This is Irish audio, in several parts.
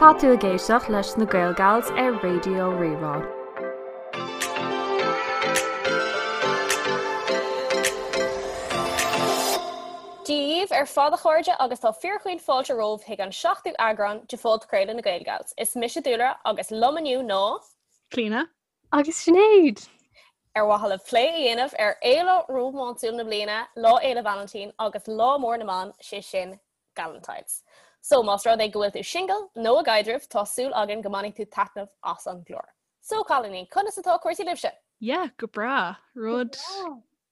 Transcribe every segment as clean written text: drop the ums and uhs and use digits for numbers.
Tá tú ag éisteacht leis na Gaelgals ar Raidió Rí-Rá. Dia dhaoibh ar fad a chairde agus tá fíorchaoin fáilte romhaibh chuig an seachtú eagrán de phodchraoladh na Gaelgals. Is mise Dúlra agus liom inniu ná. Clíona. Agus Sinéad! Ar mhaithe le plé a dhéanamh ar fhéile rómánsúil na bliana, Lá Fhéile Vailintín agus Lá Mór na mBan, sé sin Galentine's. So, más rud é go bhfuil tú singil nó i gcaidreamh, tá súil againn go mbainfidh tú taitneamh as an gclár. So, cailíní, conas atá cúrsaí libhse? Yeah, go breá. Rud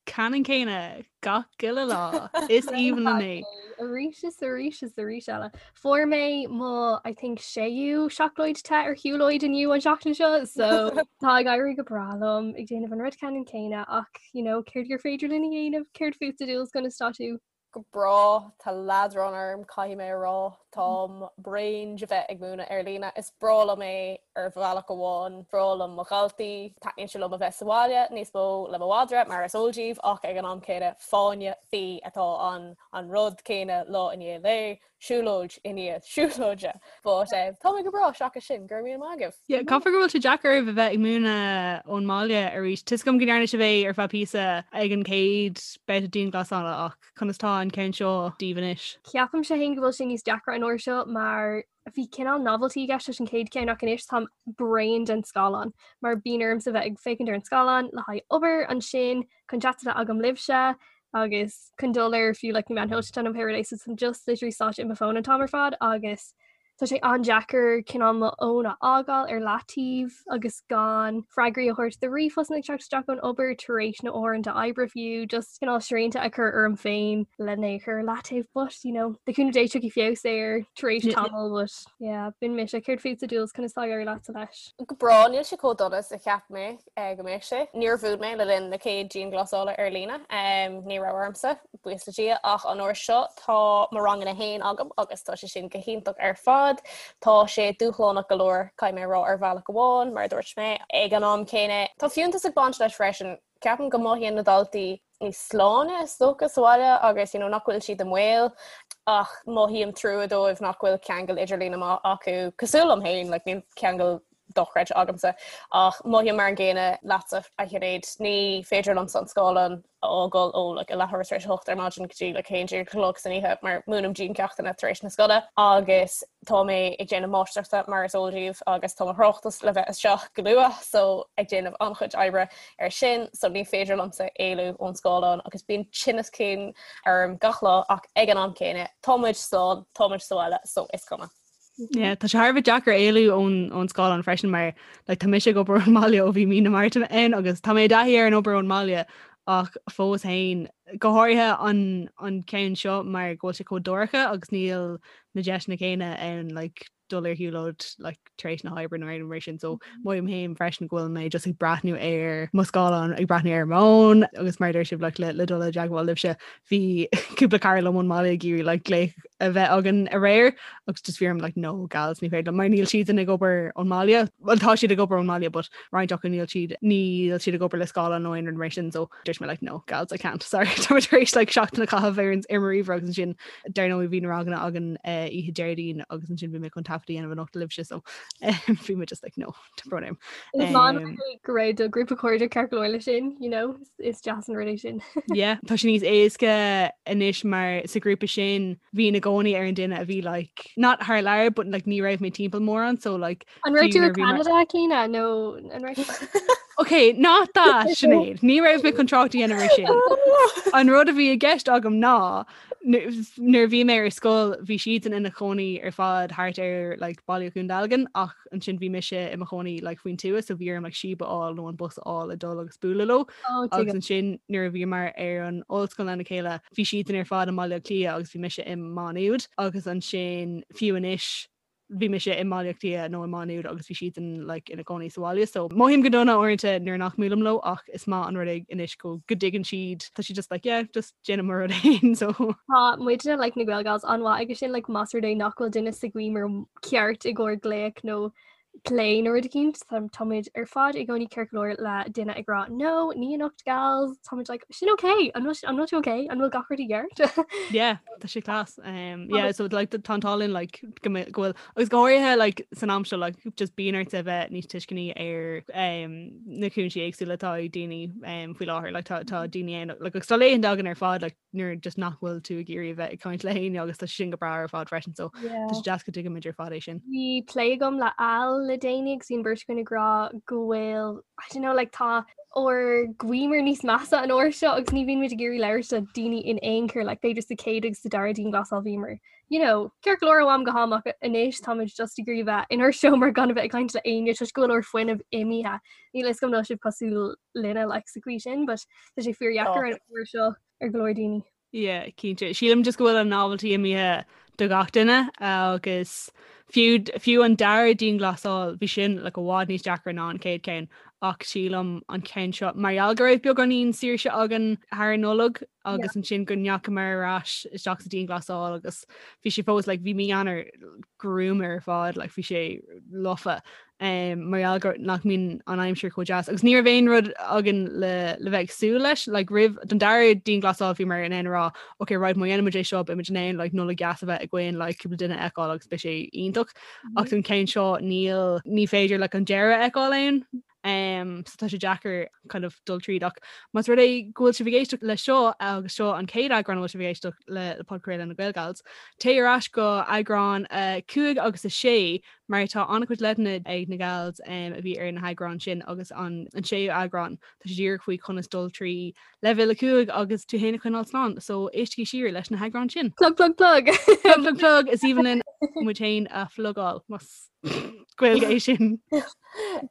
ceannann céanna gach uile lá. Is aoibhinn liom é. Arís is arís is arís eile. Fuair mé mo, I think, séú seacláid te ar shiúlóid inniu an seachtain seo, so tá ag éirí go breá liom ag déanamh an rud ceannann céanna ach, you know, céard gur féidir linn a dhéanamh, céard fútsa Dúls conas tá tú? Go breá, tá leadrán orm, caithfidh mé a rá. Táim bréan de bheith ag múineadh ar líne. Is breá liom é ar bhealach amháin, breá liom mo dhaltaí, taitníonn sé liom a bheith sa bhaile níos mó le mo mhadra, mar is eol daoibh, ach ag an am céanna, fáinne fí atá ann, an rud céanna lá i ndiaidh lae, siúlóid i ndiaidh siúlóide. But tá mé go breá seachas sin, go raibh míle maith agaibh. Yeah, caithfidh go bhfuil sé deacair oraibh a bheith ag múineadh ón mbaile arís. Tá 'fhios agam go ndearna sibh é ar feadh píosa ag an chéad babhta dianghlasála ach conas tá an ceann seo daoibh anois? Ceapaimse féin go bhfuil sé níos deacra an uair seo mar bhí cineál novelty i gceist leis an chéad cheann ach anois táim bréan den scáileán mar bíonn ormsa bheith ag féachaint ar an scáileán le haghaidh obair ansin chun chat a bheith agam libhse agus chun dul ar fiú like na meáin shóisialta nó pé rud é so táim just literally sáite i mo fón an t-am ar fad agus Tá sé an-deacair cineál mo fhón a fhágáil ar leataobh agus gan freagraí a thabhairt do ríomhphostanna ag teacht isteach ón obair tar éis na uaireanta oibre fiú, just cineál srianta a chur orm féin lena é a chur ar leataobh but you know, le cúnamh Dé tiocfaidh feabhas air tar éis tamaill but yeah, b'in mise. Céard fútsa Dúls, conas tá ag éirí leatsa leis? Go breá, níl sé chomh dona is a cheap mé go mbeadh sé. Níor mhúin mé le linn na chéad dianghlasála ar líne, ní raibh ormsa. buíochas le Dia, ach an uair seo tá mo ranganna féin agam agus tá sé sin go hiontach ar fad. Tá sé dúshlánach go leor, caithfidh mé a rá, ar bhealach amháin, mar a dúirt mé. Ag an am céanna, tá fiúntas ag baint leis freisin. Ceapaim go mothaíonn na daltaí níos sláine, is dócha, sa bhaile agus you know, nach bhfuil siad i mbaol ach mothaím trua dóibh nach bhfuil ceangal idirlíne maith acu, cosúil liom féin, like, níl ceangal dochreidte agamsa ach mothaím mar an gcéanna leatsa, a Shinéad, ní féidir liomsa an scáileán a fhágáil ó like, a leathuair tar éis a hocht ar maidin go dtí like, 11 a chlog san oíche mar múinim diancheachtanna tar éis na scoile agus tá mé ag déanamh máistreachta mar is eol daoibh agus tá mo thráchtas le bheith isteach go luath so ag déanamh an-chuid oibre ar sin so ní féidir liomsa éalú ón scáileán agus bíonn tinneas cinn orm gach lá ach ag an am céanna tá muid slán, tá muid sa bhaile so is cuma. Yeah, tá sé thar a bheith deacair éalú ón ón scáileán freisin mar like, tá mise ag obair ón mbaile ó bhí mí na Márta ann agus tá mé i dtaithí ar an obair ón mbaile ach fós féin go háirithe an an ceann seo mar go bhfuil sé chomh dorcha agus níl na deiseanna céanna ann like, dul ar shiúlóid like, tar éis na hoibre nó aon mar sin so mothaím féin freisin go bhfuil mé just ag breathnú ar mo scáileán ag breathnú ar m'fhón agus mar a deir sibh like, le, le dul i dteagmháil libhse bhí cúpla cara liom ón mbaile ag iarraidh like glaoch a bheith againn aréir agus just bhí orm like no gals ní féidir liom mar níl siadsan ag obair ón mbaile well tá siad ag obair ón mbaile but roinnt acu níl siad níl siad ag obair le scáileán nó aon rud mar sin so dúirt mé like no gals I can't sorry tá mé tar éis like seachtain a chaitheamh ar ar mo ríomhaire agus ansin dar ndóigh bhí na ranganna againn eh, oíche Déardaoin agus ansin bhí mé chun taifead a dhéanamh anocht libhse so bhí mé just like no Tá brón orm. Is maith an rud é go raibh do ghrúpa cairde ceart go leor leis sin, you know, is deas an rud é sin. Yeah, tá sé níos éasca anois mar sa ghrúpa sin bhínn i gcónaí ar an duine a bhí like not thar lear but like ní raibh mé timpeall mórán so like An raibh tú i Canada Clíona nó an raibh Ok, not that Sinéad, ní raibh mé chun trácht a dhéanamh ar sin. An rud a bhí i gceist agam ná nuair a bhí mé ar scoil bhí siadsan ina chónaí ar fad thart ar like Baile Dhún Dealgan ach ansin bhí mise i mo chónaí like faoin tuath so bhí orm like síob a fháil nó an bus a fháil ag dul agus bualadh leo oh, agus ansin nuair a bhíomar ar an ollscoil lena chéile bhí siadsan ar fad i mBaile Átha Cliath agus bhí mise i Má Nuad agus ansin fiú anois bhí mise i mBaile Átha Cliath nó i Má Nuad agus bhí siadsan like ina gcónaí sa bhaile so mothaím go dona uaireanta nuair nach mbuailim leo ach is maith an rud é anois go go dtuigeann siad tá siad just like yeah just déanaim mo rud féin so. Tá muidne like na Gaelgals an-mhaith aige sin like más rud é nach bhfuil duine sa gcaoi mar ceart i gcomhair glaoch nó. plé nó rud eicínt, táimid ar fad i gcónaí ceart go leor le duine ag rá no, ní anocht gals, táimid like sin ok, an bhfuil an bhfuil tú ok, an bhfuil gach rud i gceart? Yeah, tá sé class. Um, yeah, so like tá an t-ádh linn like go mbe- go bhfuil agus go háirithe like san am seo like just bíonn ort a bheith níos tuisceanaí ar um, na cúinsí éagsúla atá ag daoine um, faoi láthair like tá tá daoine ann like agus tá laethanta againn ar fad like nuair just nach bhfuil tú ag iarraidh a bheith ag caint le héinne agus tá sin go breá ar fad freisin so tá sé deas go dtuigimid ar fad é sin. Bhí plé agam le Al le déanaí agus bhí an bheirt againn ag rá go bhfuil I don't know like tá ár gcuimhne níos measa an uair seo agus ní bhíonn muid ag iarraidh labhairt le daoine in aon chor like b'fhéidir sa chéad agus sa dara dianghlasáil bhíomar you know ceart go leor ó am go ham ach anois táimid just ag iarraidh bheith inár seomra gan a bheith ag caint le éinne toisc go bhfuil ár fuinneamh imithe. Níl a fhios agam an bhfuil sibh cosúil linne like sa chaoi sin but tá sé fíordheacair an uair seo ar go leor daoine. Yeah, cinnte. Sílim just go bhfuil an novelty imithe do gach duine agus fiú fiú an dara dianghlasáil bhí sin like i bhfad níos deacra ná an chéad ceann ach sílim an ceann seo mar gheall go raibh beagáinín saoirse againn thar an Nollaig agus ansin go ndeachamar ar ais isteach sa dianghlasáil agus bhí sé fós like bhí mí Eanáir gruama ar fad like bhí sé lofa um, mar gheall gur nach mbíonn an aimsir chomh deas. Agus ní raibh aon rud againn le, le bheith ag súil leis, like, roimh don dara dianghlasáil bhíomar in ann a rá, ok, right, má dhéanaimid é seo, beimid in ann like, Nollaig dheas a bheith againn, like, cúpla duine a fheiceáil agus beidh sé iontach. Mm -hmm. Ach don ceann seo níl ní féidir like, an deireadh a fheiceáil ann. Um, so tá sé deacair kind of dul tríd ach más rud é go bhfuil sibh ag éisteacht le seo agus seo an chéad eagrán a bhfuil sibh ag éisteacht le, le podchraoladh na Gaelgals, téigh ar ais go eagrán uh, 5 agus a 6 mar tá an-chuid leideanna ag na gals a bhí ar na heagráin sin agus an séú eagrán, tá sé díreach faoi conas dul trí leibhéal 5 agus tú féin a choinneáil slán, so éistigí siar leis na heagráin sin. Plug plug plug! Plug plug plug! Is aoibhinn linn muid féin a phlugáil, más Gaeilge é sin.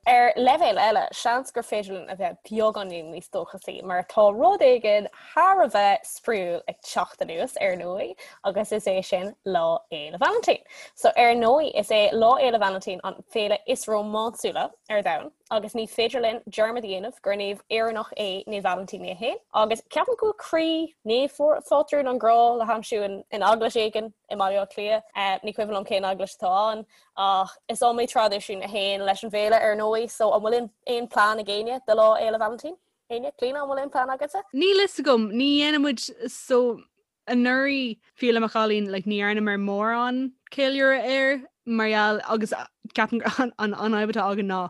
Ar leibhéal eile, seans gur féidir linn a bheith beagáinín níos dóchasaí mar tá rud éigin thar a bheith spraíúil ag teacht anuas, ar ndóigh, agus is é sin Lá Fhéile Vailintín. So, ar ndóigh, is é Lá Fhéile Vailintín an féile is rómánsúla ar domhan, agus ní féidir linn dearmad a dhéanamh gur naomh Éireannach é Naomh Vailintín é féin. Agus ceapaim go bhfuil croí naomhphátrún an ghrá le haimsiú in eaglais éigin i mBaile Átha Cliath. Ní cuimhin liom cén eaglais atá ann, ach is iomaí traidisiún a théann leis an bhféile, ar ndóigh. So, an bhfuil aon plean ag éinne do Lá Fhéile Vailintín? Éinne? Clíona, an bhfuil aon plean agatsa? Níl fhios agam, ní dhéanann muid so anuraidh fiú le mo chailín like ní dhearnamar mórán ceiliúradh air mar gheall agus ceapaim an an an fhadhb atá againn ná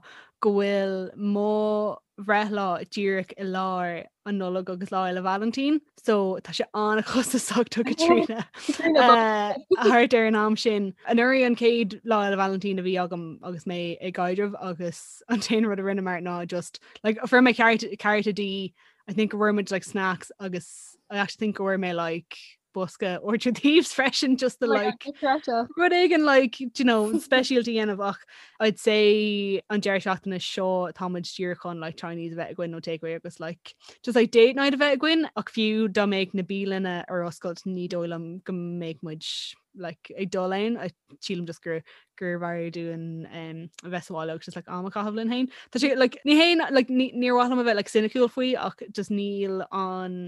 go bhfuil mo bhreithlá díreach i lár an Nollaig agus Lá Fhéile Vailintín so tá sé an-chostasach do Caitríona thart ar an am sin. Anuraidh an chéad Lá Fhéile Vailintín a bhí agam agus mé i gcaidreamh agus an t-aon rud a rinneamar ná just like fuair mé cárta di I think go bhfuair muid like snacks agus I actually think go bhfuair mé like bosca Orchard Thieves freisin just to like rud éigin like you know speisialta a dhéanamh ach I'd say an deireadh seachtaine seo táimid díreach chun like Chinese a bheith againn nó takeaway agus like just like date night a bheith againn ach fiú dá mbeadh na bialanna ar oscailt ní dóigh liom go mbeadh muid like ag dul ann I sílim just gur gurbh fhearr dúinn um, a bheith sa bhaile agus just like am a chaitheamh linn féin. Tá sé like ní haon like ní níor mhaith liom a bheith like cynical faoi ach just níl an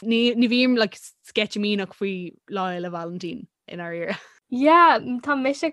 ní ní bhím like sceitimíneach faoi Lá Fhéile Vailintín i ndáiríre. Yeah, tá mise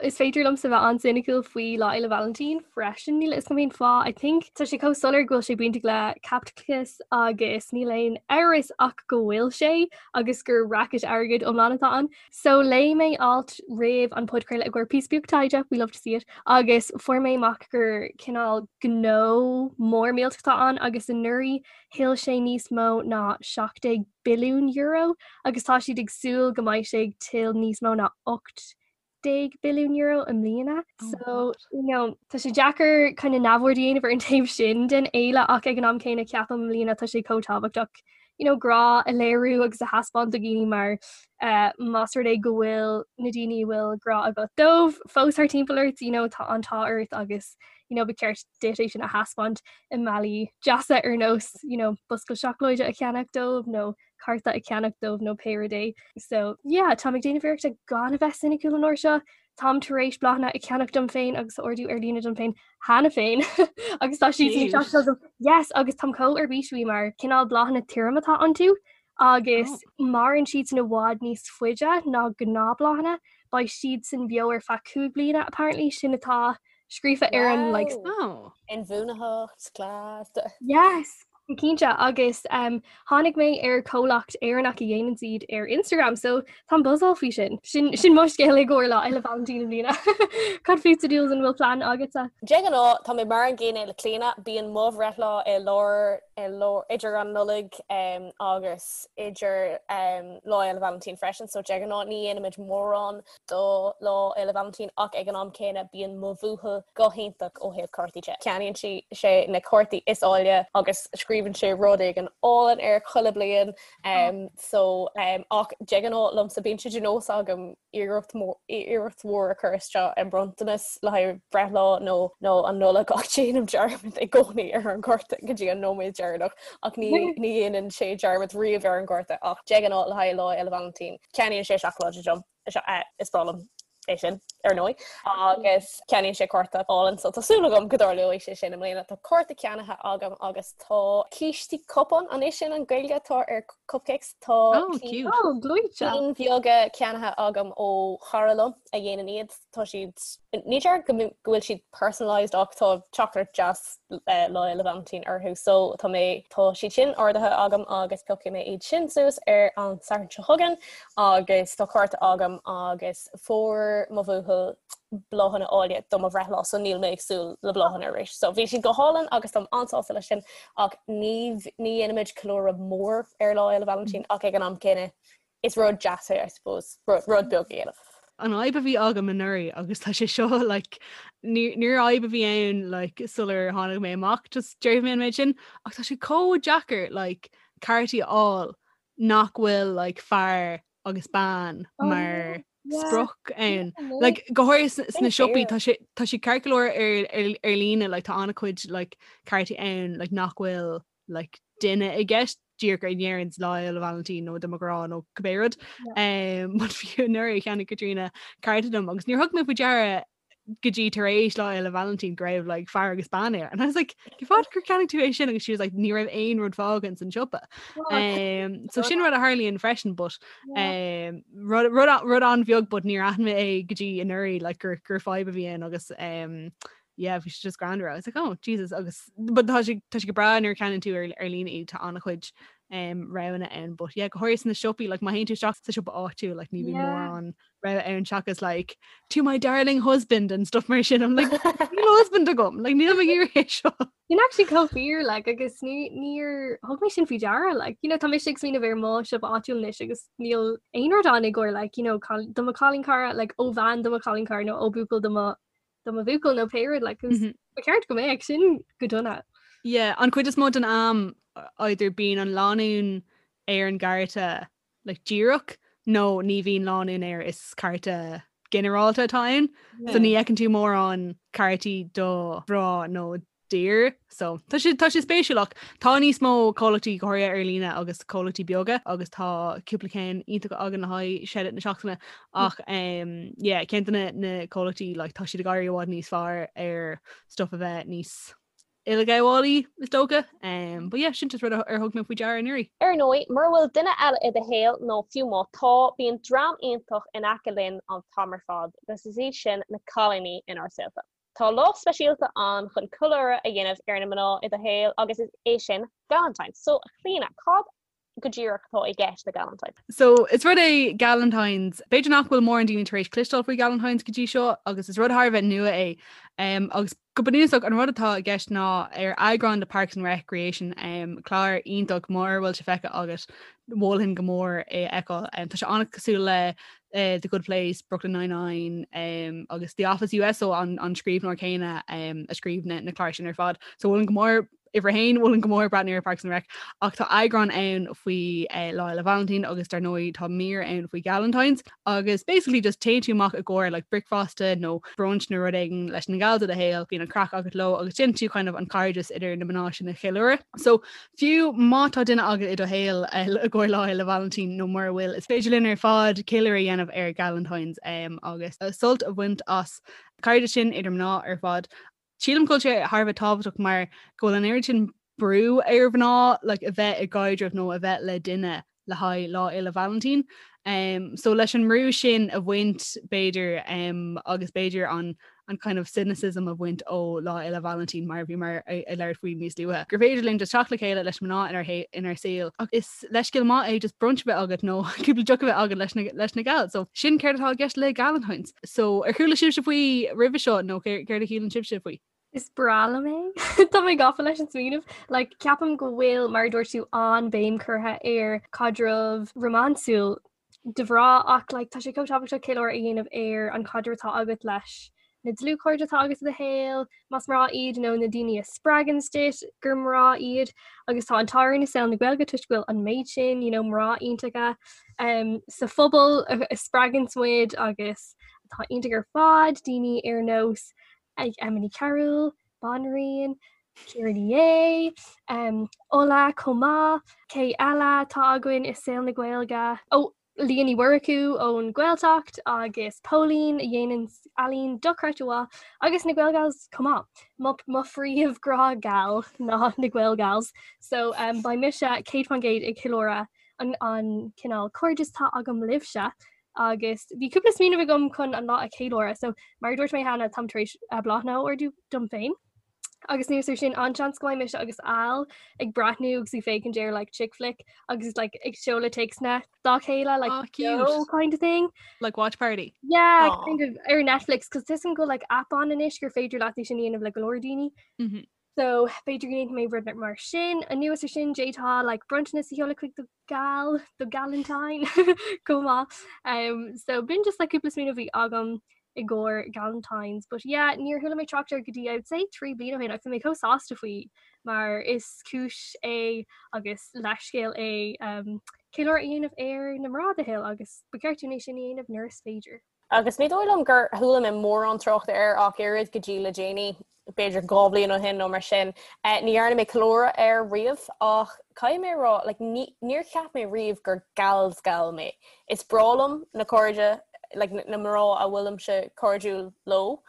is féidir liomsa bheith an-cynical faoi Lá Fhéile Vailintín freisin níl a fhios agam cén fáth. I think tá sé chomh soiléir go bhfuil sé bainteach le caipitleachas agus níl aon amhras ach go bhfuil sé agus gur racket airgid iomlán atá ann. So léigh mé alt roimh an podchraoladh i gcomhair píosa beag taighde, we love to see it, agus fuair mé amach gur cineál gnó mór millteach atá ann agus anuraidh thuill sé níos mó ná 17 billiún euro agus tá siad ag súil go mbeidh sé ag tuill níos mó ná 18 billiún euro i mbliana. Oh so you know, tá sé deacair kind of neamhaird a dhéanamh ar an taobh sin den fhéile ach ag an am céanna ceapaim i mbliana tá sé chomh tábhachtach you know, grá a léiriú agus a thaispeáint do dhaoine mar uh, más rud é go bhfuil na daoine a bhfuil grá agat dóibh fós thar timpeall ort, you know, tá an t-ádh ort agus you know, ba cheart duit é sin a thaispeáint i mbealaí deasa ar nós you know, bosca seacláide a cheannach dóibh nó cárta a cheannach dóibh nó pé rud é. So yeah, táim ag déanamh iarrachta gan a bheith soiniciúil an uair seo. Táim tar éis bláthanna a cheannach dom féin agus a ordú ar líne dom féin cheana féin agus tá siad ag teacht agam. Yes, agus táim chomh ar bís faoi mar cineál bláthanna tirim atá iontu agus oh. maireann siad san i bhfad níos faide ná gnáthbhláthanna, beidh siad san beo ar feadh 5 bliana apparently sin atá. scríofa ar an like Wow. Inbhuanaitheacht, class. Yes! Cinnte agus um, tháinig mé ar comhlacht Éireannach a dhéanann iad ar Instagram, so táim buzzáil faoi sin. Sin, sin mo scéal i gcomhair Lá Fhéile Vailintín i mbliana. Cad fútsa Jules an bhfuil plean agatsa? De ghnáth, tá mé mar an gcéanna le Clíona, bíonn mo bhreithlá i lár, i lár, idir an Nollaig um, agus idir um, Lá Fhéile Vailintín freisin, so de ghnáth ní dhéanaimid mórán do Lá Fhéile Vailintín ach ag an am céanna bíonn mo bhuachaill go hiontach ó thaobh cártaí de. Ceannaíonn sí sé na cártaí is áille agus scríobhann sé rud éigin álainn air chuile bliain um, so um, ach de ghnáth liomsa bíonn sé de nós agam iarracht iarracht mhór a chur isteach i mbronntanas le haghaidh breithlá nó nó an Nollaig ach déanaim dearmad i gcónaí ar an gcárta go dtí an nóiméad deireanach ach ní ní dhéanann sé dearmad riamh ar an gcárta ach de ghnáth le haghaidh Lá Fhéile Vailintín ceannaíonn sé seacláid dom. Is breá liom é sin, ar ndóigh, agus ceannaíonn sé cárta álainn so tá súil agam go dtarlóidh sé sin i mbliana. Tá cárta ceannaithe agam agus tá cístí cupán, an é sin an Ghaeilge atá ar cupcakes? Tá Oh, cute. Oh, gleoite. cinn bheaga ceannaithe agam ó chara liom a dhéanann iad. Tá siad, ní déarfainn go go bhfuil siad personalised ach tá teachtaireacht deas Lá Fhéile Vailintín orthu so tá mé, tá siad sin ordaithe agam agus piocfaidh mé iad sin suas ar an Satharn seo chugainn agus tá cárta agam agus fuair mo bhuachaill bláthanna áille do mo bhreithlá so níl mé ag súil le bláthanna arís. So bhí siad go hálainn agus táim an-sásta leis sin ach ní ní dhéanaimid ceiliúradh mór ar Lá Fhéile Vailintín ach ag an am céanna is rud deas é I suppose, rud beag a dhéanamh. An fhadhb a bhí agam anuraidh agus tá sé seo like níor fhadhb a bhí ann like sular tháinig mé amach just déarfaidh mé an méid sin ach tá sé chomh deacair like cártaí a fháil nach bhfuil like fear agus bean oh, mar yeah. sprioc ann. Like go háirithe sna siopaí tá sé tá sé ceart go leor ar ar ar líne like tá an-chuid like cártaí ann like nach bhfuil like duine i gceist díreach a ndeireann Lá Fhéile Vailintín nó do mo ghrá nó cibé rud. Um, but fiú anuraidh cheannaigh Caitríona cárta dom agus níor thug mé faoi deara go dtí tar éis Lá Fhéile Vailintín go raibh like, fear agus bean air. And I was like, cén fáth gur cheannaigh tú é sin agus she was like, ní raibh aon rud fágtha san siopa. Um, so sin rud a tharlaíonn freisin, but um, rud, rud, rud an-bheag, but níor aithin mé é go dtí anuraidh like, gur, gur fadhb a bhí ann agus um, yeah bhí sé just greannmhar I was like oh Jesus agus but tá sé tá sé go breá nuair a cheannaíonn tú ar ar líne iad tá an-chuid um, roghanna ann but yeah go háirithe sna siopaí like má théann tú isteach sa siopa áitiúil like ní bhíonn Yeah. mórán rogha ann seachas like to my darling husband and stuff mar sin I'm like níl husband agam like níl mé ag iarraidh é seo Sin actually chomh fíor like agus ní níor thug mé sin faoi deara like you know tá mise ag smaoineamh ar mo siopa áitiúil anois agus níl aon rud ann i gcomhair like you know do mo chailín cara like ó bhean do mo chailín cara nó ó buachaill do mo do mo bhuachaill nó pé rud like, mm -hmm. Ba cheart go mbeadh sin go dona. Yeah, an chuid is mó den am either bíonn an lánúin ar an gcárta like, díreach nó ní bhíonn lánúin air is cárta ginearálta atá ann. Yeah. So ní fheiceann tú mórán cártaí do mhná nó d'fhir. So tá sé tá sé spéisiúil ach tá níos mó comhlachtaí go háirithe ar líne agus comhlachtaí beaga agus tá cúpla ceann iontach againn le haghaidh shout out na seachtaine ach um, yeah, ceann de na, na comhlachtaí like, tá siad ag éirí i bhfad níos fearr ar stuff a bheith níos uileghabhálaí is dócha. Um, but yeah, sin just rud ar thug mé faoi deara anuraidh. Ar ndóigh, mura bhfuil duine eile i do shaol nó fiú má tá, bíonn dream iontach in aice linn an t-am ar fad agus is iad sin na cailíní inár saolta. Tá lá speisialta ann chun ceiliúradh a dhéanamh ar na mná i do shaol agus is é sin Galentine's. So, a Chlíona, cad go díreach atá i gceist le Galentine's? So, is rud é Galentine's, b'fhéidir nach bhfuil mórán daoine tar éis cloisteáil faoi Galentine's go dtí seo agus is rud thar a bheith nua é. Um, agus go bunúsach an rud atá i gceist ná ar eagrán de Parks and Recreation, um, clár iontach mura bhfuil sé feicthe agat, mholfainn go mór é a fheiceáil. Um, tá sé an-cosúil le uh, The Good Place, Brooklyn Nine-Nine um, agus The Office US so an, an scríbhneoir céanna um, a scríobh na, na cláir sin ar fad. So mholfainn go mór uimhir a haon mholfainn go mór breathnú ar Parks and Rec ach tá eagrán ann faoi uh, Lá Fhéile Vailintín agus dar ndóigh tá mír ann faoi Galentine's agus basically just téann tú amach i gcomhair like bricfeasta nó brunch nó rud éigin leis na gals i do shaol, bíonn an craic agat leo agus déanann tú kind of an cairdeas idir na mná sin a cheiliúradh. So Fiú má tá duine agat i do shaol i gcomhair Lá Fhéile Vailintín nó mura bhfuil, is féidir linn ar fad ceiliúradh a dhéanamh ar Galentine's agus sult a bhaint as cairdeas sin idir mná ar fad. Sílim go bhfuil sé thar a bheith tábhachtach mar go bhfuil an oiread sin brú ar mhná like, a bheith i gcaidreamh nó a bheith le duine le haghaidh Lá Fhéile Vailintín. So leis an mbrú sin a bhaint b'fhéidir agus b'fhéidir an. an kind of cynicism a bhaint ó Lá Fhéile Vailintín mar a bhíomar ag labhairt faoi níos luaithe. Gur féidir linn just teacht le chéile leis mná inár saol ach is leithscéal maith é just brunch a bheith agat nó cúpla deoch a bheith agat leis na leis na gals. So sin céard atá i gceist le Galentine's. So ar chuala sibhse faoi roimhe seo nó céard a shíleann sibhse faoi? Is breá liom é. Tá mé gafa leis an smaoineamh. Like, ceapaim go bhfuil, mar a dúirt tú, an-bhéim curtha ar caidreamh rómánsúil do mhná ach like, tá sé chomh tábhachtach ceiliúradh a dhéanamh ar an chaidreamh atá agat leis na dlúthchairde atá agat i do shaol, más mná iad nó na daoine a spreagann duit gur mná iad agus tá an t-ádh orainn i saol na Gaeilge toisc go bhfuil an méid sin you know, mná iontacha um, sa phobal a, a spreagann muid agus atá iontach ar fad, daoine ar nós ag Emma Ní Chearúil, Banríon, Ciara Ní É, um, Ola chomh maith, cé eile atá againn i saol na Gaeilge? Ó, Leah Ní Mhurchú ón Ghaeltacht agus Póilín a dhéanann ealaín dochreidte mhaith agus na Gaelgals chomh maith. Mo, mo phríomh-ghrá gal ná na Gaelgals. So um, beidh mise 100% ag ceiliúradh an, an cineál cairdeas atá agam libhse agus bhí cúpla smaoineamh agam chun an lá a cheiliúradh, so mar a dúirt mé cheana táim tar éis eh, bláthanna a ordú dom féin. Agus anuas air sin an-seans go mbeidh mise agus Al ag breathnú agus ag féachaint ar like chick flick agus like ag seoladh téacsanna dá chéile like Oh, cute. no kind of thing. Like watch party. Yeah, Aw. kind of ar Netflix, cos tuigim go bhfuil like app ann anois gur féidir leat é sin a dhéanamh le go leor daoine. Mm -hmm. So b'fhéidir go ndéanfaidh mé rud mar sin. Anuas air sin d'fhéadfá like bronntanas a sheoladh chuig do gal, do galentine chomh maith. Um, so b'in just like cúpla smaoineamh a bhí agam i gcomhair Galentine's. But yeah, níor chuala mé trácht air go dtí I would say 3 bliana ó shin agus bhí mé chomh sásta faoi mar is cúis é agus leithscéal é um, ceiliúradh a dhéanamh ar na mná i do shaol agus ba cheart dúinn é sin a dhéanamh nuair is féidir. Agus ní dóigh liom gur chuala mé mórán tráchta air ach oiread go dtí le déanaí, b'fhéidir 2 bhliain ó shin nó mar sin. Ní dhearna mé ceiliúradh air riamh ach caithfidh mé a rá, like, níor cheap mé riamh gur gal's gal mé. Is breá liom na cairde, like, na mná a bhfuilimse cairdiúil leo.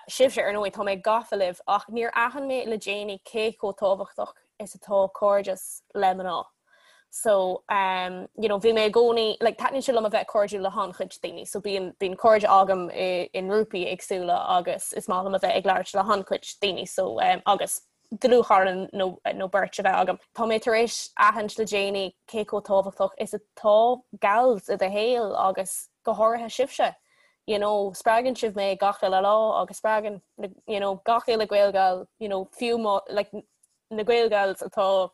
Sibhse, ar ndóigh, tá mé gafa libh ach níor aithin mé le déanaí cé chomh tábhachtach is atá cairdeas le mná. So um, you know, bhí mé i gcónaí, like, taitníonn sé liom a bheith cairdiúil le han-chuid daoine, so bíonn bíonn cairde agam i, i ngrúpaí éagsúla agus is maith liom a bheith ag labhairt le han-chuid daoine, so um, agus dlúthchara nó, nó beirt a bheith agam. Tá mé tar éis aithint le déanaí cé chomh tábhachtach is atá gals i do shaol agus go háirithe sibhse. You know, spreagann sibh mé gach uile lá agus spreagann you know, gach uile Gaelgal, you know, fiú má, like, na Gaelgals atá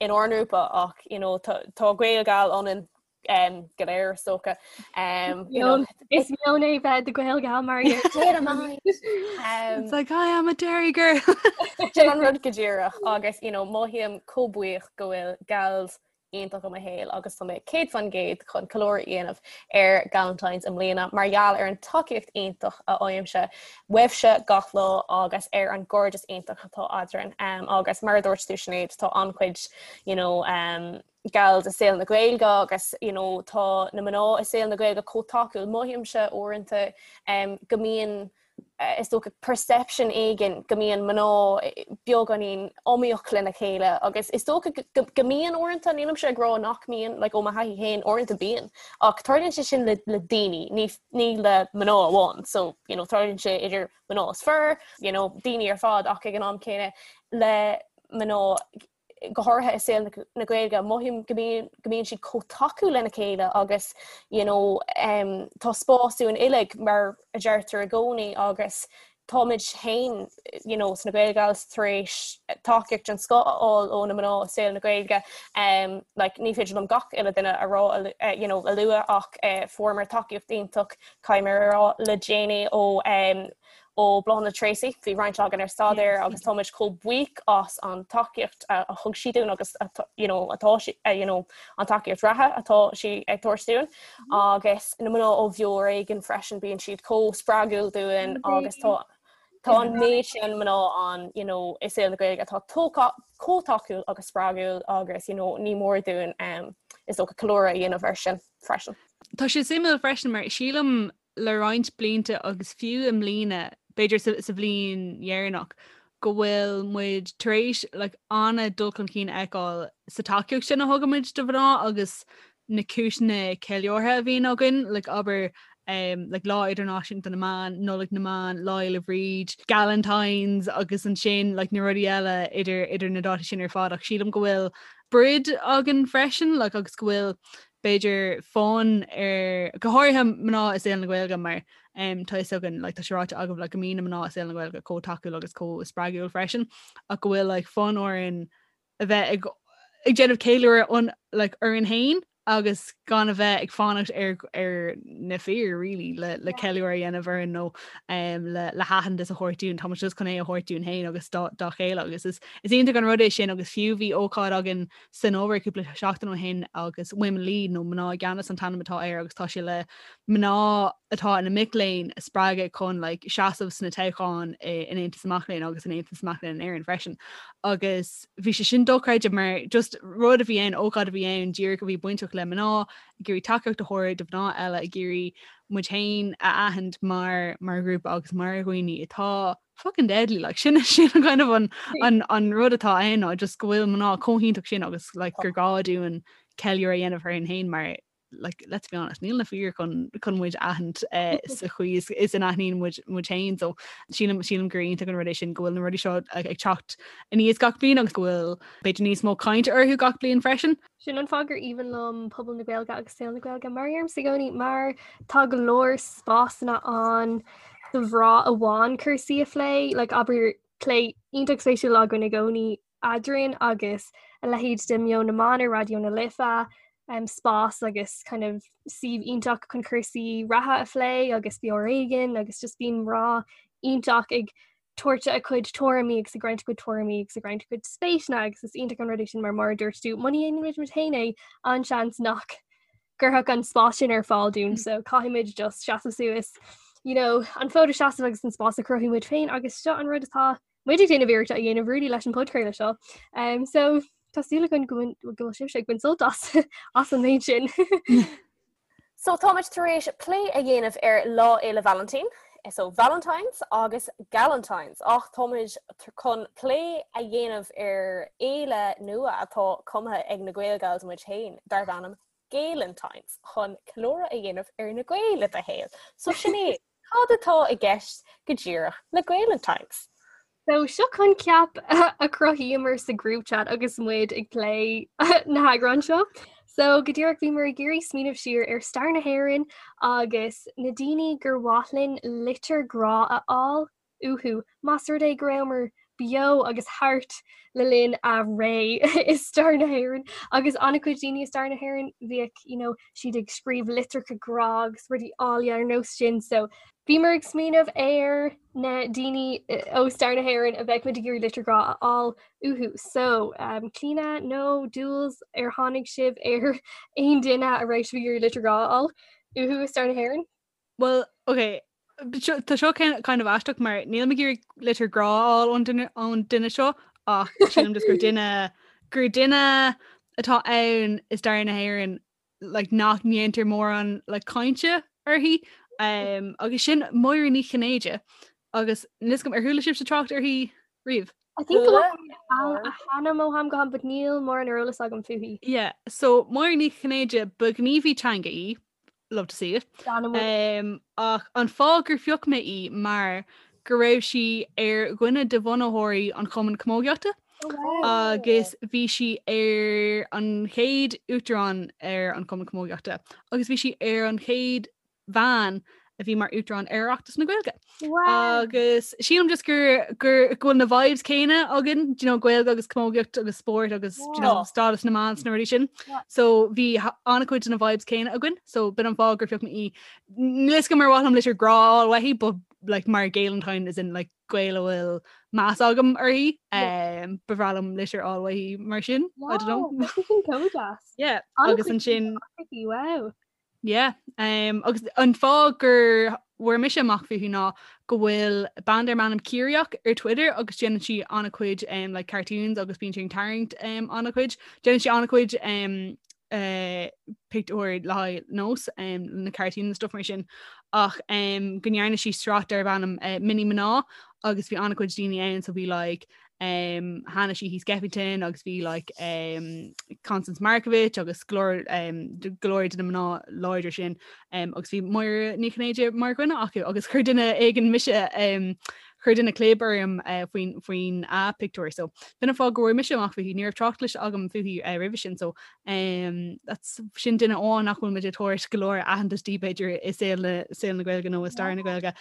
in ár ngrúpa ach you know, tá, tá Gaelgal ionainn um, go léir is dócha. Um, you know, Is meon é bheith i do Ghaelgal mar um, It's like I am a Derry girl. Sin an rud go díreach agus you know, mothaím chomh buíoch go bhfuil gals iontach i mo shaol agus tá mé 100% chun ceiliúradh a dhéanamh ar Galentine's i mbliana mar gheall ar an tacaíocht iontach a fhaighimse uaibhse gach lá agus ar an gcairdeas iontach atá eadrainn. Um, agus mar a dúirt tú Sinéad, tá an-chuid you know, um, gals i saol na Gaeilge agus you know, tá na mná i saol na Gaeilge chomh tacúil. Mothaímse uaireanta um, go mbíonn is dócha perception éigin go mbíonn mná beagáinín iomaíoch lena chéile agus is dócha go mbíonn uaireanta, nílimse ag rá nach mbíonn, like ó mo thaithí féin uaireanta bíonn, ach tarlaíonn sé sin le le daoine, ní ní le mná amháin, so you know tarlaíonn sé idir mná is fir, you know daoine ar fad ach ag an am céanna le mná go háirithe i saol na Gaeilge, mothaím go mbíonn go mbíonn siad chomh tacúil lena chéile agus you know um, tá spás dúinn uilig mar a deirtear i gcónaí agus táimid féin you know, sna Gaelgals tar éis tacaíocht den scoth a fháil ó na mná i saol na Gaeilge. Um, like, ní féidir liom gach uile duine a rá uh, you know, a lua ach uh, fuaireamar tacaíocht iontach caithfidh mé a rá le déanaí ó um, ó Bláthnaid Treacy, bhí roinnt againn ar staidéar agus táimid chomh buíoch as an tacaíocht a thug sí dúinn agus you know, atá sí, you know, an tacaíocht reatha atá sí ag tabhairt dúinn agus na mná ó Bheo ar Éigean freisin bíonn siad chomh spreagúil dúinn agus tá tá an méid sin mná ann you know, i saol na Gaeilge atá chomh tacúil agus spreagúil agus you know, ní mór dúinn um, is dócha ceiliúradh a dhéanamh air sin freisin. Tá sé suimiúil freisin mar sílim le roinnt blianta agus fiú i mbliana, b'fhéidir sa bhliain dheireanach, go bhfuil muid tar éis like, an-dul chun cinn a fheiceáil sa tacaíocht sin a thugaimid do mhná agus na cúiseanna ceiliúrtha a bhíonn againn, like, abair. um, like Lá Idirnáisiúnta na mBan, Nollaig na mBan, Lá Fhéile Bríd, Galentines agus ansin like, na rudaí eile idir idir na dátaí sin ar fad ach sílim go bhfuil broid againn freisin like, agus go bhfuil b'fhéidir fonn ar go háirithe mná i saol na Gaeilge mar um, tá fhios againn like, tá sé ráite agaibh like, go mbíonn na mná i saol na Gaeilge chomh tacúil agus chomh spreagúil freisin ach go bhfuil like, fonn orainn a bheith ag ag déanamh ceiliúradh on like, orainn féin agus gan a bheith ag fanacht ar ar na fir really le le ceiliúradh a dhéanamh orainn nó um, le le haitheantas a thabhairt dúinn tá muid just chun é a thabhairt dúinn féin agus dá dá chéile agus is is iontach an rud é sin agus fiú bhí ócáid againn san obair cúpla seachtain ó shin agus Women Lead nó mná i gceannas an t-ainm atá air agus tá sé le mná atá ina mic léinn a spreagadh chun like, seasamh sna toghcháin in Aontas na Mac Léinn agus in Aontas na Mac Léinn in Éirinn freisin agus bhí sé sin dochreidte mar just rud a bhí ann, ócáid a bhí ann díreach a bhí bainteach le mná, ag iarraidh tacaíocht a thabhairt do mhná eile, ag iarraidh muid féin a aithint mar mar ghrúpa agus mar dhaoine atá fucking deadly like sin sin an kind of an an an rud atá ann ná just go bhfuil mná chomh hiontach sin agus like gur gá dúinn ceiliúradh a dhéanamh orainn féin mar like, let's be honest, níl na fir chun chun muid aithint eh, sa chaoi is, is a n-aithníonn muid muid féin, so sílim sílim gur iontach an rud é sin go bhfuil na rudaí seo ag, ag teacht aníos gach bliain agus go bhfuil b'fhéidir níos mó cainte orthu gach bliain freisin. Sin an fáth gur aoibhinn liom pobal na Gaeilge agus saol na Gaeilge mar deirimse i gcónaí mar tá go leor spásanna ann do mhná amháin cúrsaí a phlé, like abair plé iontach spéisiúil againn i gcónaí eadrainn agus a leithéid de Meon na mBan ar Raidió na Life, um, spás agus kind of suíomh iontach chun cúrsaí reatha a phlé agus Beo Ar Éigean agus just bíonn mná iontach ag tabhairt a cuid tuairimí agus ag roinnt a cuid tuairimí agus ag roinnt a cuid spéiseanna agus is iontach an rud é sin mar mar a dúirt tú muna ndéanann muid muid féin é an-seans nach gcuirfeadh an spás sin ar fáil dúinn so caithfimid just seasamh suas you know, an fód a seasamh agus an spás a chruthú muid féin agus seo an rud atá muid ag déanamh iarracht a dhéanamh really leis an podchraoladh seo. Um, so tá súil againn go bhfuil sibhse ag baint sult as as an méid sin. So táimid tar éis plé a dhéanamh ar Lá Fhéile Vailintín, so Valentine's agus Galentine's, ach táimid chun plé a dhéanamh ar fhéile nua atá cumtha ag na Gaelgals muid féin darb ainm Gaelentine's chun ceiliúradh a dhéanamh ar na Gaeil i do shaol. So sin é, Cad atá i gceist go díreach le Gaelentine's? So seo coincheap a chruthaíomar sa group chat agus muid ag plé na heagráin seo. So go díreach bhíomar ag iarraidh smaoineamh siar ar stair na hÉireann agus na daoine gur mhaith linn litir grá a fháil uathu más rud é go rabhamar beo agus thart le linn a ré i stair na hÉireann agus an-chuid daoine i stair na hÉireann bhíodh you know, siad ag scríobh litreacha grá agus rudaí áille ar nós sin so bhíomar ag smaoineamh ar na daoine eh, ó stair na hÉireann a bheadh muid ag iarraidh litir grá a fháil uathu. So um, Clíona nó Jules ar tháinig sibh ar aon duine a raibh sibh ag iarraidh litir grá a fháil uathu i stair na hÉireann? Well, ok, tá seo kind of aisteach mar níl mé ag iarraidh litir grá a fháil ón duine ón duine seo ach sílim just gur duine gur duine atá ann i stair na hÉireann like, nach ndéantar mórán like, cainte uirthi um, agus sin Máire Ní Chinnéide agus níl a fhios agam ar chuala sibhse trácht uirthi riamh. I think go bhfuil a hainm ó am go ham, but níl mórán ar eolas agam fúithi. Yeah, so Máire Ní Chinnéide ba ghníomhaí teanga í, love to see it. Um, ach an fáth gur phioc mé í mar go raibh sí ar dhuine de bhunaitheoirí an Chumann Camógaíochta oh, agus bhí sí ar an chéad uachtarán ar an Chumann Camógaíochta agus bhí sí ar an chéad bhean a bhí mar uachtarán ar Oireachtas na Gaeilge. Wow. Agus sílim just gur gur go bhfuil na vibes céanna againn, do you know, Gaeilge agus camógaíocht agus spórt agus do you know, Yeah. stádas na mban sna rudaí sin. Yeah. So bhí an-chuid de na vibes céanna againn, so b'in an fáth gur phioc mé í. Níl a fhios agam ar mhaith liom litir grá a fháil uaithi, but like mar Gaelentine as in like Gael a bhfuil meas agam uirthi, Yeah. um, ba bhreá liom litir a fháil uaithi mar sin. I don't know. Wow, tá sin chomh deas. Yeah, An-chuid agus ansin uaithi, wow. Yeah, um, agus an fáth gur bhfuair mise amach fúithi ná go bhfuil bean darb ainm Ciaraíoch ar Twitter agus déanann sí an-chuid um, like cartoons agus bíonn sí ag tarraingt um, an-chuid. Déanann sí an-chuid um, uh, pictiúir le haghaidh nós um, na cartoons and stuff mar sin ach um, go ndearna sí sraith darb ainm uh, Mini Mná agus bhí an-chuid daoine ann so bhí like, um, Hanna Sheehy Skeffington agus bhí like, um, Constance Markievicz agus go leor um, go leor de na mná láidir sin um, agus bhí Máire Ní Chinnéide mar dhuine acu agus chuir duine éigin mise um, chuir duine clib orm uh, faoin faoin a pictiúr so b'in an fáth go bhfuair mise amach fúithi ní raibh trácht cloiste agam fúithi uh, roimhe sin so um, that's sin duine amháin nach bhfuil muid ag tabhairt go leor aitheantas di b'fhéidir i saol na saol na Gaeilge nó i stair na Gaeilge.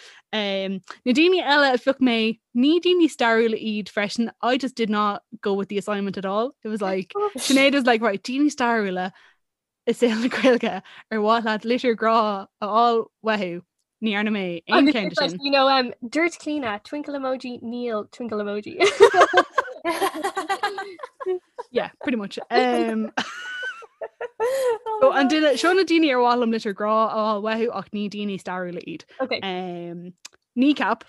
Um, na daoine eile a phioc mé ní daoine stairiúla iad freisin I just did not go with the assignment at all. It was like Sinéad was like right daoine stairiúla i saol na Gaeilge ar mhaith leat litir grá a fháil uathu ní dhearna mé aon Agus cheann it's de like, sin. you know, um, dúirt Clíona, twinkle emoji, níl twinkle emoji. Yeah, pretty much. Um, so an duine seo na daoine ar mhaith liom litir grá a fháil uathu ach ní daoine stairiúla iad. Okay. Um, Kneecap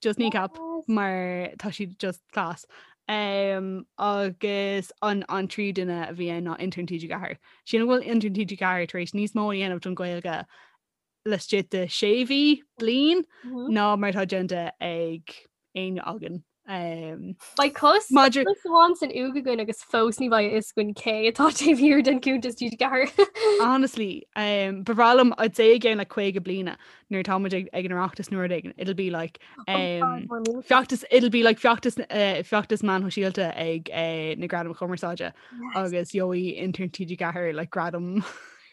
just Kneecap mar tá siad just class. Um, agus an an tríú duine a bhí ann ná Intern TG4. Sílim go bhfuil Intern TG4 tar éis níos mó a dhéanamh don Ghaeilge laistigh de sé mhí bliain mm -hmm. ná mar atá déanta ag éinne againn. Um, Beidh cos Maidir- amháin san uaigh againn agus fós ní bheidh a fhios againn cé atá taobh thiar den cuntas TG4. Honestly, um, ba bhreá liom I'd say i gceann like 50 bliana nuair atá muid ag, ag an Oireachtas nó rud éigin, it'll be like um, feachtas it'll be like feachtas uh, feachtas meáin shóisialta ag uh, na Gradaim Chumarsáide agus gheobhaidh intern TG4 like gradam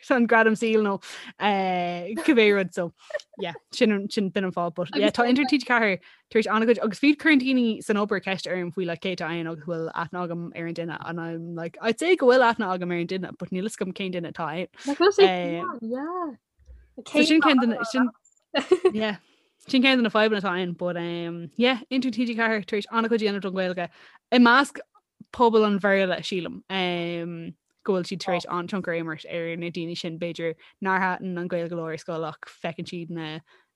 an gradam saoil nó uh, cibé rud so yeah, sin sin b'in an fáth but yeah, tá intern TG4 tar éis an-chuid agus fiú cuireann daoine san obair ceist orm faoi like cé atá ann agus bhfuil aithne agam ar an duine and I'm like I'd say go bhfuil aithne agam ar an duine but níl a fhios agam cén duine atá ann. Like, bhfuil sé Um, yeah. So sin ceann de na- sin yeah. Sin ceann de na fadhbanna atá ann but um, yeah, Intern TG4 tar éis an-chuid a dhéanamh don Ghaeilge i measc pobal an Bhéarla sílim um, go bhfuil siad tar éis an-tionchar a imirt ar na daoine sin b'fhéidir nár thaitin an Ghaeilge leo ar scoil ach feiceann siad na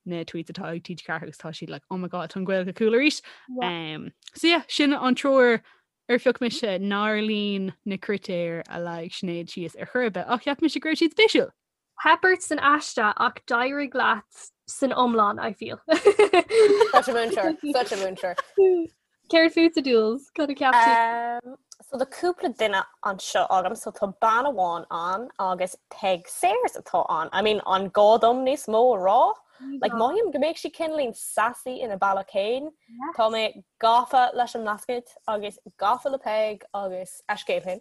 na tweets atá ag TG4 agus tá siad like oh my god tá an Ghaeilge cool arís. Yeah. Um, so yeah, sin an triúr ar phioc mise nár líon na critéir a leag Sinéad síos ar chor ar bith ach cheap mise go raibh siad spéisiúil. Theip ort san aiste ach d'éirigh leat san iomlán, I feel. Such a múinteoir, such a múinteoir. Céard fútsa Dúils? Cad a cheap tú? Um, so tá cúpla duine anseo agam, so tá bean amháin ann agus Peig Sayers atá ann. I mean, an gá dom níos mó a rá? Like, mothaím go mbeadh sí cineáilín sassy ina bealach féin. Tá mé gafa leis an mBlascaod agus gafa le Peig agus a scéal féin.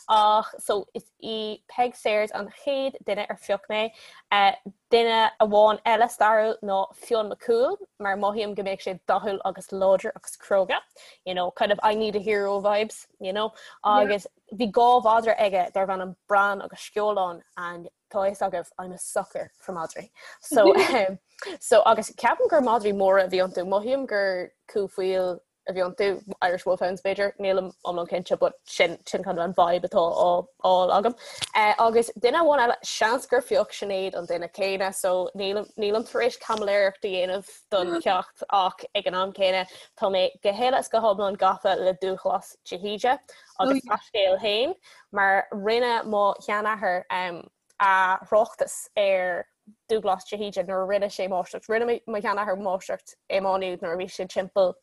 Ach so is í Peig Sayers an chéad duine ar phioc mé. Uh, duine amháin eile stairiúil ná Fionn Mac Cumhaill, mar mothaím go mbeadh sé dathúil agus láidir agus cróga. You know, kind of I need a hero vibes, you know. Agus bhí dhá mhadra aige darbh ainm Bran agus Sceolán and tá a fhios agaibh I'm a sucker for madraí. So, um, so agus ceapaim gur madraí móra a bhí iontu, mothaím gur cú faoil a bhí iontu, Irish Wolfhounds b'fhéidir, nílim iomlán cinnte but sin sin kind of an vibe atá á fháil agam. Uh, agus duine amháin eile seans gur phioc Sinéad an duine céanna so nílim nílim tar éis caimiléireacht a dhéanamh don cheacht ach ag an am céanna tá mé go huile is go hiomlán gafa le Dúghlas de hÍde agus Oh, a scéal féin mar rinne mo sheanathair um, a thráchtas ar Dúghlas de hÍde nuair a rinne sé máistreacht. Rinne mo sheanathair máistreacht i Má Nuad nuair a bhí sé timpeall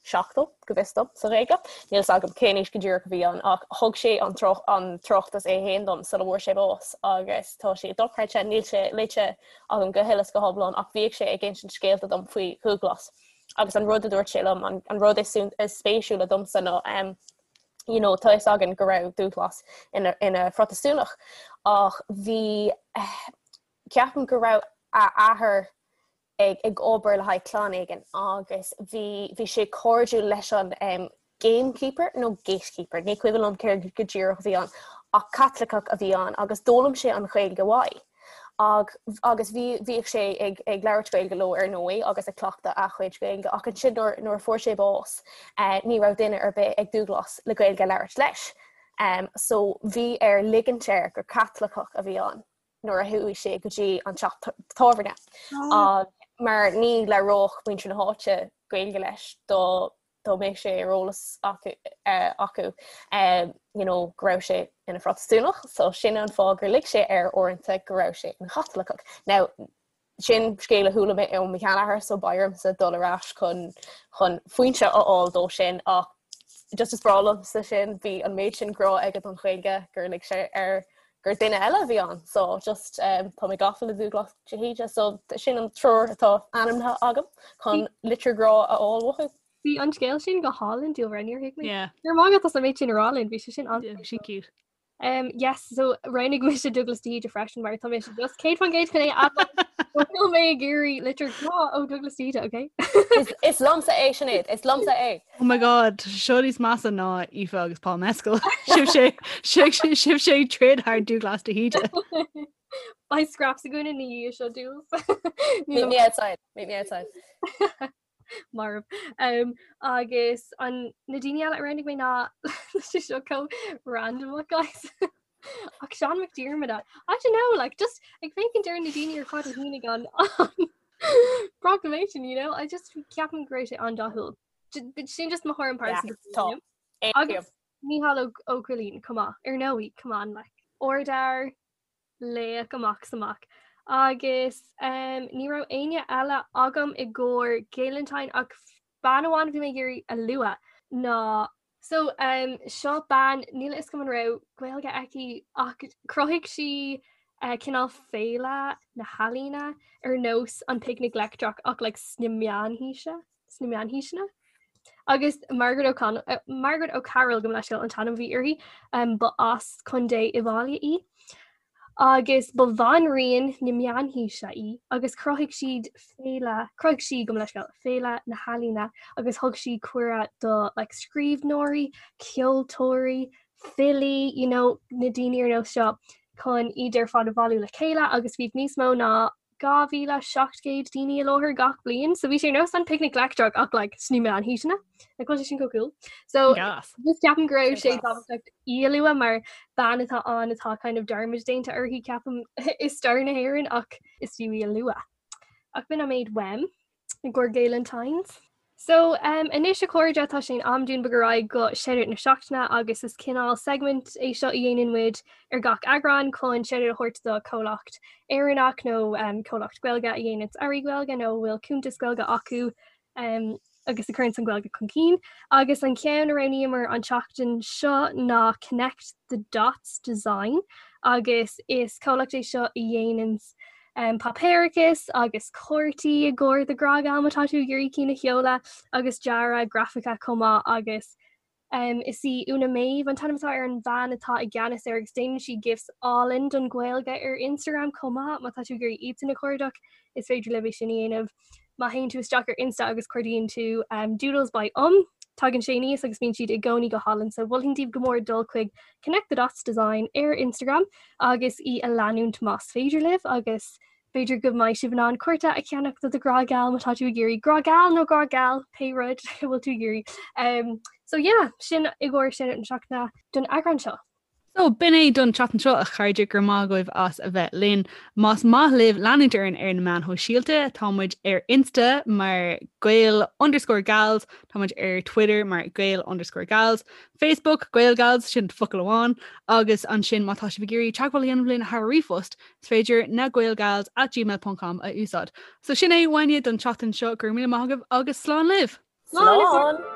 70 go bhfios dom sa Ghaeilge. Níl a fhios agam cén aois go díreach a bhí ann ach thug sé an tráchtas é féin dom sula bhfuair sé bás agus tá sé dochreidte, níl sé léite agam go huile is go hiomlán ach bhíodh sé ag insint scéalta dom faoi Dhúghlas agus an rud a dúirt sé liom, an rud is spéisiúla domsa ná um, you know, tá a fhios againn go raibh Dúghlas ina, ina Phrotastúnach ach bhí eh, ceapaim go raibh a athair ag, ag obair le haghaidh clann éigin agus bhí, bhí sé cairdiúil leis an um, gamekeeper nó gatekeeper, ní cuimhin liom céard go díreach a bhí ann, ach Caitliceach a bhí ann agus d'fhoghlaim sé an Ghaeilge uaidh. Ag, agus bhí, bhíodh sé ag, ag labhairt Gaeilge leo ar ndóigh agus ag cleachtadh a chuid Gaeilge ach ansin nuair, nuair a fuair sé bás eh, ní raibh duine ar bith ag Dúghlas le Gaeilge a labhairt leis. Um, so bhí air ligint air gur Caitliceach a bhí ann nuair a chuaigh sé go dtí an teach tábhairne. Oh. Mar ní labhródh muintir na háite Gaeilge leis dá dá mbeadh sé ar eolas acu acu you know go raibh sé ina Phrotastúnach so sin an fáth gur lig sé air uaireanta go raibh sé ina Chaitliceach. Now sin scéal a chuala mé ó mo sheanathair so beidh ormsa dul ar ais chun chun foinse a fháil dó sin ach Just is breá liomsa sin, bhí an méid sin grá aige don Ghaeilge gur lig sé air gur duine eile a bhí ann. So just um, tá mé gafa le Dúglas de hÍde, so sin an triúr atá ainmnithe agam chun litir grá a fháil uathu. Bhí an scéal sin go hálainn Dúlra, níor thuig mé. Yeah. Go raibh maith agat as an méid sin a rá linn, bhí sé sin an Yeah, sin cute. Um, yes, so roghnaigh mise Dúglas de hÍde freisin mar tá mise just 100% chun é a Níl mé ag iarraidh litir grá ó Dúglas de hÍde, okay? Is, is liomsa é Sinéad, is liomsa é. Oh my god, seo níos measa ná Aoife agus Paul Mescal. Sibh sé sibh sé ag troid thar Dúglas de hÍde. Beidh scraps againn ina dhiaidh seo Dúls. Meet me outside, meet me outside. Marbh. Um, agus an na daoine eile a roghnaigh mé ná sé seo chomh random guys. Ach Seán Mac Diarmada. I don't know, like just ag féachaint ar na daoine ar fad a shínigh an proclamation, you know? I just ceapaim go raibh sé an-dathúil. Sin just mo thuairim pearsanta. Tá. Agus Mícheál Ó Cóilín, come on, ar ndóigh, come on, like. Ardfhear, laoch amach is amach. Agus um, ní raibh éinne eile agam i gcomhair Gaelentine ach bean amháin a bhí mé ag iarraidh a lua ná So um, seo bean níl a fhios agam an raibh Gaeilge aici ach chruthaigh sí uh, cineál féile na healaíona ar nós an Picnic Leictreach ach like, sna meánhaoise sna meánhaoiseanna. Agus Margaret O'Connell uh, Margaret O'Carroll gabh mo leithscéal an t-ainm a bhí uirthi um, ba as Contae Uíbh Fhailí í. Agus ba bhanríon na meánhaoise í agus chruthaigh siad féile, chruthaigh sí, gabh mo leithscéal, féile na healaíona agus thug sí cuireadh do like scríbhneoirí, ceoltóirí, filí, you know, na daoine ar nós seo chun iad ar fad a bhailiú le chéile agus bhíodh níos mó ná 2,700 daoine i láthair gach bliain, so bhí sé ar nós an Picnic Leictreach ach like sna meánhaoiseanna. Like bhfuil sé sin chomh cool? So Gas. just ceapaim go raibh sé tábhachtach í a lua mar bean atá ann atá kind of dearmad déanta uirthi ceapaim i stair na hÉireann ach is fiú í a lua. Ach b'in an méid uaim i gcomhair Gaelentines. So um, anois a chairde tá sé in am dúinn bogadh ar aghaidh go shoutout na seachtaine agus is cineál segment é seo a dhéanann muid ar gach eagrán chun shoutout a thabhairt do comhlacht Éireannach nó um, comhlacht Gaeilge a dhéanann earraí Gaeilge nó a bhfuil cuntas Gaeilge acu um, agus a chuireann an Ghaeilge chun cinn. Agus an ceann a roghnaíomar an tseachtain seo ná Connect the Dots Design agus is comhlacht é seo a dhéanann páipéarachas agus cártaí i gcomhair do ghrá geal má tá tú ag iarraidh cinn a sheoladh agus dearadh grafaice chomh maith agus um, is í Úna Méabh an t-ainm atá ar an bhean atá i gceannas air agus déanann sí gifs álainn don Ghaeilge ar Instagram chomh maith má tá tú ag iarraidh iadsan a chuardach is féidir libh é sin a dhéanamh. Má théann tú isteach ar Insta agus cuardaíonn tú um, Doodles by Um, tagann sé aníos agus bíonn siad i gcónaí go hálainn, so mholfainn daoibh go mór dul chuig Connect the Dots Design ar Instagram agus í a leanúint más féidir libh agus b'fhéidir go mbeidh sibh in ann cárta a cheannach do do ghrá geal má tá tú ag iarraidh grá geal nó grá geal pé rud a bhfuil tú ag iarraidh. Um, so yeah, sin i gcomhair shoutout na seachtaine don eagrán seo. So, b'in é don tseachtain seo, a chairde, go raibh maith agaibh as a bheith linn. Más maith libh leanúint orainn ar na meáin shóisialta, tá muid ar Insta mar Gael underscore Gals, tá muid ar Twitter mar Gael underscore Gals, Facebook, GaelGals, sin focal amháin, agus ansin má tá sibh ag iarraidh teagmháil a dhéanamh linn thar ríomhphost, is féidir na gaelgals at gmail ponc com a úsáid. So sin é uainne don tseachtain seo, go raibh míle maith agaibh agus slán libh! Slán!